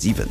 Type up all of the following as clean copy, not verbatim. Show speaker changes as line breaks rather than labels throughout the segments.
7.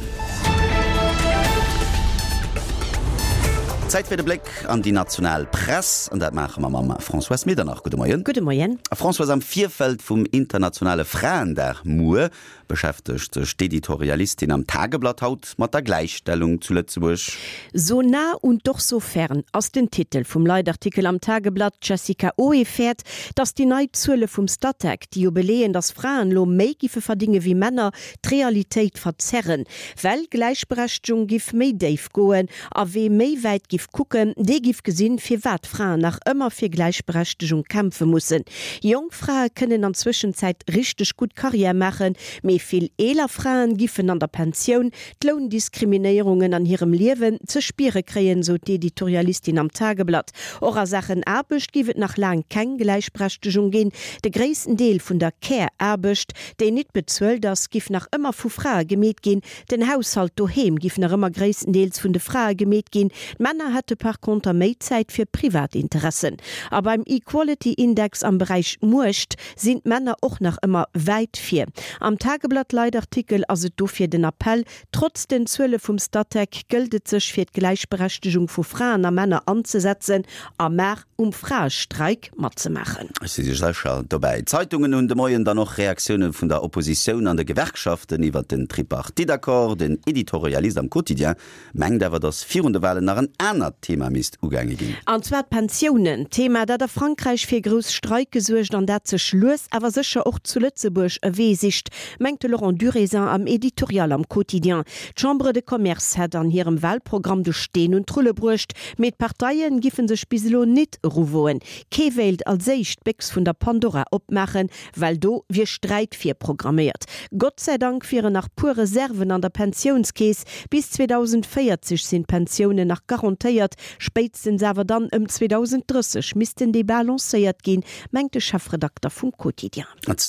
Zäit fir de Bléck an déi national Press, an dat maache mer mam Françoise Medernach. Gudde Moien.
Gudde Moien.
Françoise, am Virfeld vum internationale Fraendag muer beschäftegt sech d'Editorialistin am Tageblatt haut mat der Gläichstellung zu Lëtzebuerg.
So nah und doch so fern ass den Titel vum Leitartikel am Tageblatt. D'Jessica Oe fäert, datt déi nei Zuele vum Statec, déi jo beleeën, datt Fraen elo méi giffe verdinge wéi Männer, d'Realitéit verzerren, well Gläichberechtegung giff méi déif goen a wee méi wäit giff kucken, dee giff gesinn, firwat Fraen nach ëmmer fir Gläichberechtegung kämpfe mussen. Jonk Frae kënnen an Zwëschenzäit richteg gutt Carrière maachen, mee vill eeler Fraen giffen an der Pensioun d'Loundiskriminéierungen an hirem Liewen ze spiere kréien, sou d'Editorialistin am Tageblatt. Och a Saachen Aarbecht giff et nach laang keng Gläichberechtegung ginn. De gréissten Deel vun der Care-Aarbecht, déi nit bezuelt ass, giff nach ëmmer vu Frae gemeet ginn. Den Haushalt doheem giff nach ëmmer gréisstendeels vun de Frae gemeet ginn. D'Männer hätte par conter méi Zäit fir privat Interessen. A beim Equality Index am Beräich Muecht sinn d'Männer och nach ëmmer wäit vir. Am Tageblatt-Leitartikel ass et dofir den Appell, Trotz den Zuele vum Statec gëllt et sech fir d'Gläichberechtegung vu Fraen a Männer anzesetzen a mar um Fraestreik matzemaachen.
Ech si sécher dobäi. D'Zeitungen hunn de Moien dann och Reaktioune vun der Oppositioun an de Gewerkschaften iwwert den Tripartite-Accord. Den Editorialist am Quotidien mengt awer, datt virun de Walen nach en anert Thema misst ugaange ginn.
An zwar d'Pensiounen. Thema, dat a Frankräich fir grouss Streike suergt an dat sech lues awer sécher och zu Lëtzebuerg e Wee sicht, mengt de Laurent Durézin am Editorial am Quotidien. D'Chambre de Commerce hätt an hirem Wahlprogramm de Steen un d'Rulle bruecht, mee d'Parteie giffe sech bis elo nit eruwoen. Kee wéilt als éischt d'Béchs vun der Pandora opmaachen, well do wier Sträit virprogramméiert. Gott sei Dank wieren nach puer Reserven an der Pensiounskeess. Bis 2040 sinn d'Pensiounen nach garantéiert, spéitstens awer dann ëm 2030 missten déi balancéiert ginn, mengt de Chefredakter vum Quotidien.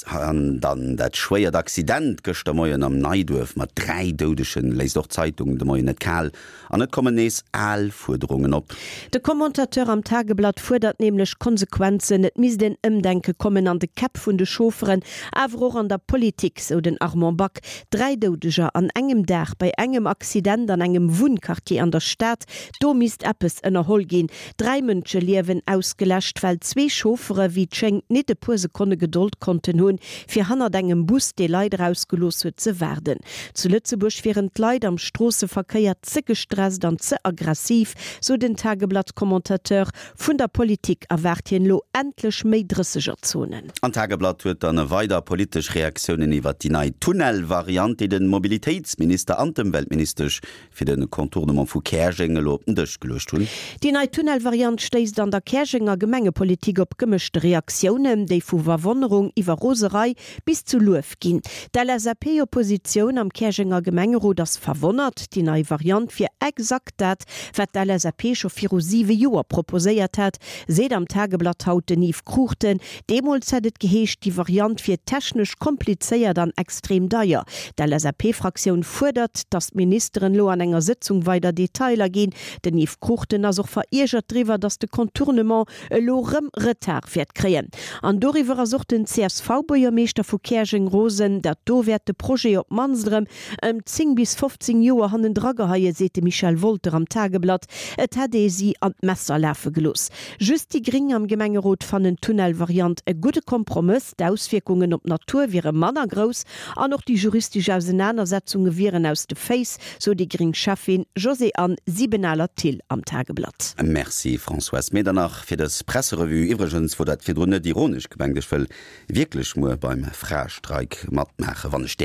An dann dat schwéiert Accident gëschter Moien am Neiduerf mat 3 Doudegen léisst och d'Zeitung de Moien net kal. An et kommen nees al Fuerderungen op.
De Commentateur am Tageblatt fuerdert nämlech Konsequenzen. Et misst en Ëmdenke kommen an de Käpp vun de Chaufferen, awer och an der Politik, sou den Armand Back. 3 Doudeger an engem Dag bei engem Accident an engem Wunnquartier an der Stad, do misst eppes ënnerholl ginn. 3 Mënscheliewen ausgeläscht, well zwee Chauffere wéi et schéngt nit e puer Sekonne Gedold konnten hunn, fir hannert engem Bus, dee Leit erausgelooss huet, ze waarden. Zu Lëtzebuerg wieren d'Leit am Stroosseverkéier ze gestresst an ze aggressiv, sou den Tageblatt-Commentateur. Vun der Politik erwaart hien elo endlech méi Drëssegerzonen.
An d'Tageblatt huet dann weider politesch Reaktiounen iwwert déi nei Tunnel-Variant, déi de Mobilitéitsminister an d'Ëmweltministesch fir de Contournement vu Käerjeng elo op den Dësch geluecht hunn.
Déi nei Tunnelvariant stéisst an der Käerjenger Gemengepolitik op gemëschte Reaktiounen, déi vu Verwonnerung iwwer Roserei bis zu Luef ginn. D'LSAP-Oppositioun am Käerjenger Gemengerot ass verwonnert. Déi nei Variant wier exakt dat, wat d'LSAP scho viru siwe Joer proposéiert hat, seet am Tageblatt haut den Yves Cruchten. Deemools hätt et geheescht, déi Variant wier technesch komplizéiert an extrem deier. D'LSAP-Fraktioun fuerdert, datt d'Ministeren elo an enger Sëtzung weider Detailer ginn. Den Yves Cruchten ass och veriergert driwwer, datt de Contournement elo rëm Retard wäert kréien. An doriwwer ass och den CSV-Buergermeeschter vu Käerjeng rosen. Dat do wäert de Projet op d'mannst erëm ëm 10 bis 15 Joer hannendra geheien, seet de Michel Wolter am Tageblatt. Et hätt ee si an d'Messer lafe gelooss. Just déi Gréng am Gemengerot fannen d'Tunnelvariant e gudde Kompromëss. D'Auswierkungen op d'Natur wiere manner grouss an och déi juristesch Ausenanersetzunge wieren aus de Féiss, sou déi gréng Schäffin Josée-Anne Siebenaler-Thill am Tageblatt.
Merci Françoise Medernach fir dës Presserevue. Iwwregens wor dat virdrun net ironesch gemengt, ech wëll wierklech muer beim Fraestreik matmaachen, wann ech däerf.